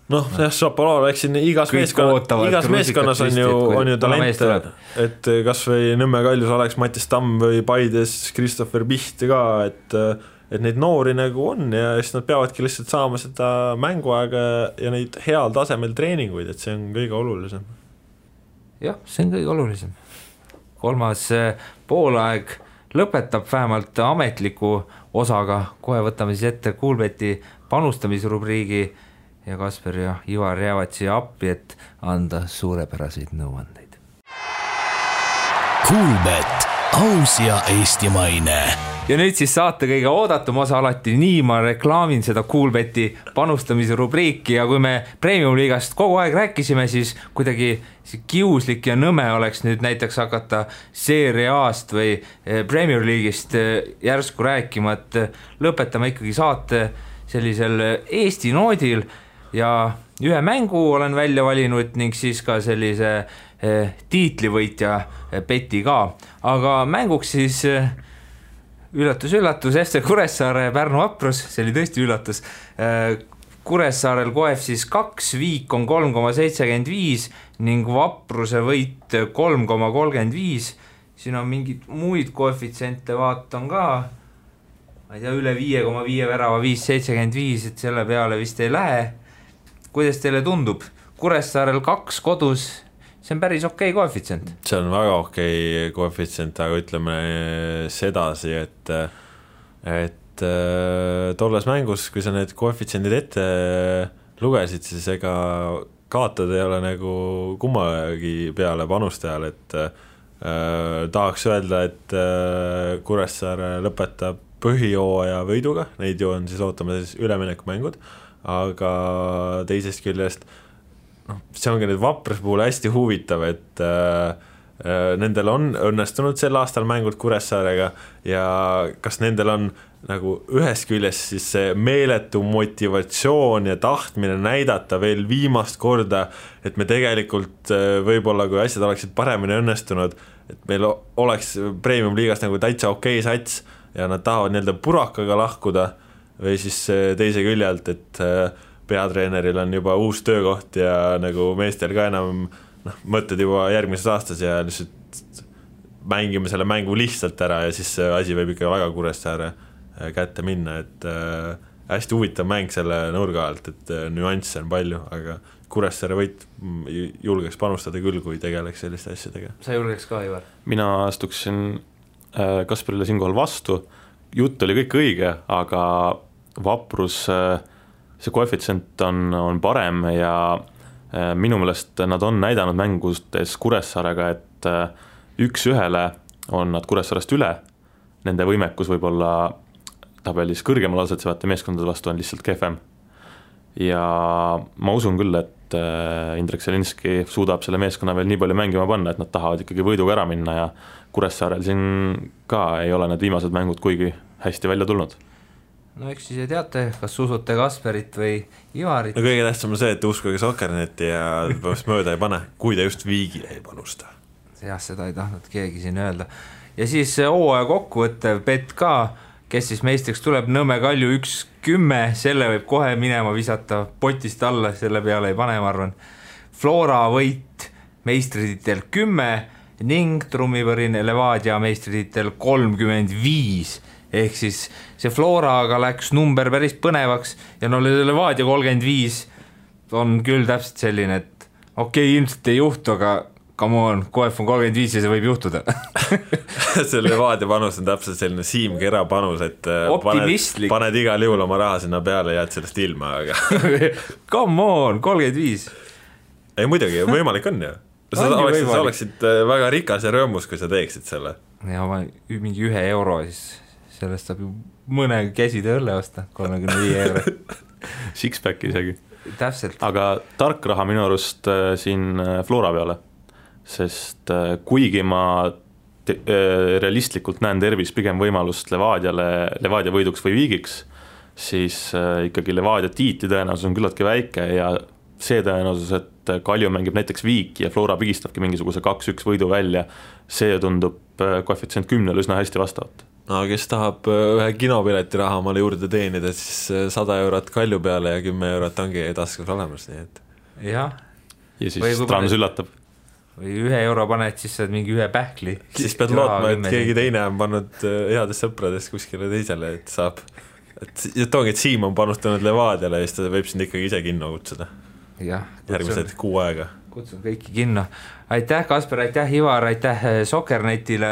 Šapovalov, eks siin igas meeskonnas on ju talent, et kas või Nõmme Kaljus oleks Mattis Tamm või Paides Christopher Piht ka, et neid noori nagu on ja siis nad peavadki lihtsalt saama seda mänguaega ja neid heal tasemel treeninguid, et see on kõige olulisem. Jah, see on kõige olulisem. Kolmas poolaeg lõpetab vähemalt ametliku osaga, kohe võtame siis ette Kuulbeti panustamisrubriigi ja Kasper ja Ivar jäävad siia appi, et anda suurepäraseid nõuandeid. Kuulbet, aus ja eestimaine. Ja nüüd siis saate kõige oodatum osa alati, nii ma reklaamin seda Kuulbeti panustamise rubriiki ja kui me Premium-liigast kogu aeg rääkisime, siis kuidagi kiuslik ja nõme oleks nüüd näiteks hakata Serie A-st või Premier-liigist järsku rääkima, et lõpetame ikkagi saate sellisel Eesti noodil ja ühe mängu olen välja valinud ning siis ka sellise tiitlivõitja peti ka, aga mänguks siis üllatus, FC Kuressaare Pärnu Vaprus, see oli tõesti üllatus. Kuressaarel koef siis 2, Viik on 3,75 ning Vapruse võit 3,35. Siin on mingid muid koefitsiente, vaatan ka, ma ei tea, üle 5,5 värava 5,75, et selle peale vist ei lähe. Kuidas teile tundub? Kuressaarel 2 kodus, see on päris okei koefitsient. See on väga okei koefitsient, aga ütleme sedasi, et tolles mängus, kui sa need koefitsiendid ette lugesid, siis ega kaotada ei ole nagu kummagi peale panustajal, et tahaks öelda, et Kuressaare lõpetab põhijooaja võiduga, neid ju on siis ootame siis üleminekumängud, aga teisest küljest see ongi nüüd Vapruse puhul hästi huvitav, et nendel on õnnestunud sel aastal mängud Kuressaarega ja kas nendel on nagu ühest küljest siis see meeletu motivatsioon ja tahtmine näidata veel viimast korda, et me tegelikult võib-olla, kui asjad oleksid paremini õnnestunud, et meil oleks Premium-liigast nagu täitsa okei sats ja nad tahavad nii-öelda purakaga lahkuda või siis teise küljelt, et peatreeneril on juba uus töökoht ja nagu meestel ka enam mõtted juba järgmises aastas ja lihtsalt mängime selle mängu lihtsalt ära ja siis see asi võib ikka väga Kuressaare kätte minna, et hästi huvitav mäng selle nurga alt, et nüansse on palju, aga Kuressaare võit julgeks panustada küll, kui tegeleks selliste asjadega. Sa julgeks ka, Ivar? Mina astuksin Kasparile siinkohal vastu, jutt oli kõik õige, aga Vaprus, see koefitsient on parem ja minu meelest nad on näidanud mängustes Kuressaarega, et 1-1 on nad Kuressaarest üle, nende võimekus võib-olla tabelis kõrgemal asetsevate meeskondade vastu on lihtsalt kehvem. Ja ma usun küll, et Indrek Selinski suudab selle meeskonna veel nii palju mängima panna, et nad tahavad ikkagi võiduga ära minna ja Kuressaarel siin ka ei ole need viimased mängud kuigi hästi välja tulnud. No eks siis ei teate, kas usute Kasperit või Ivarit? No kõige tähtsam on see, et uskuge Sokkerneti ja mööda ei pane, kui ta just Viigile ei panusta. Jah, seda ei tahtnud keegi siin öelda. Ja siis hooaja kokkuvõttev bet ka, kes siis meistriks tuleb, Nõmme Kalju 1-10, selle võib kohe minema visata potist alla, selle peale ei pane, ma arvan. Flora võit meistrititel 10 ning trummipõrin Levadia meistrititel 35, ehk siis see Floraga läks number päris põnevaks ja no Levadia 35 on küll täpselt selline, et okei, ilmselt ei juhtu, aga come on, KF on 35 ja see võib juhtuda. See Levadia panus on täpselt selline Siim Kera panus, et paned igal juhul oma raha sinna peale ja jääd sellest ilma, aga come on, 35. Ei muidugi, võimalik on ju. Sa oleksid väga rikas ja rõõmus, kui sa teeksid selle. Ja mingi 1 euro, siis sellest saab ju mõne käside õlle osta, 35 euro. Sixpack isegi. Täpselt. Aga tark raha minu arust siin Flora peale. Sest kuigi ma realistlikult näen tervis pigem võimalust Levadia võiduks või viigiks, siis ikkagi Levadia tiiti tõenäosus on küllaltki väike ja see tõenäosus, et Kalju mängib näiteks viik ja Flora pigistabki mingisuguse 2-1 võidu välja, see tundub koefitsient 10 üsna hästi vastavat. No kes tahab ühe kinopileti raha omale juurde teenida, siis 100 eurot Kalju peale ja 10 eurot ongi taskus olemas, nii et jah. Ja siis Trans üllatab. Või 1 euro paned, siis saad mingi 1 pähkli. Siis pead lootma, et keegi teine on pannud headest sõpradest kuskile teisele, et saab. Et ongi, et Siim on panustanud Levadiale ja siis ta võib sind ikkagi ise kinno kutsuda. Jah. Järgmised 6 aega. Kutsun kõiki kinno. Aitäh Kasper, aitäh Ivar, aitäh Sokkernetile,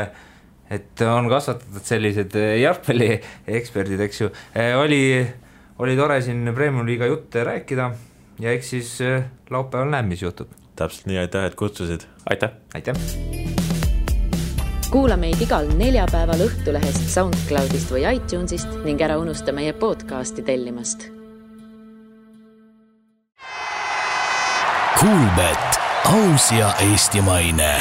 et on kasvatatud sellised jalgpalli eksperdid, eks ju. Oli tore siin Premium Liiga jutte rääkida ja eks siis laupäeval näeb, mis juhtub. Täpselt nii, aitäh, et kutsusid. Aitäh. Aitäh. Kuula meid igal neljapäeval Õhtulehest, SoundCloudist või iTunesist ning ära unusta meie podcasti tellimast. Kuulbet, aus ja eestimaine.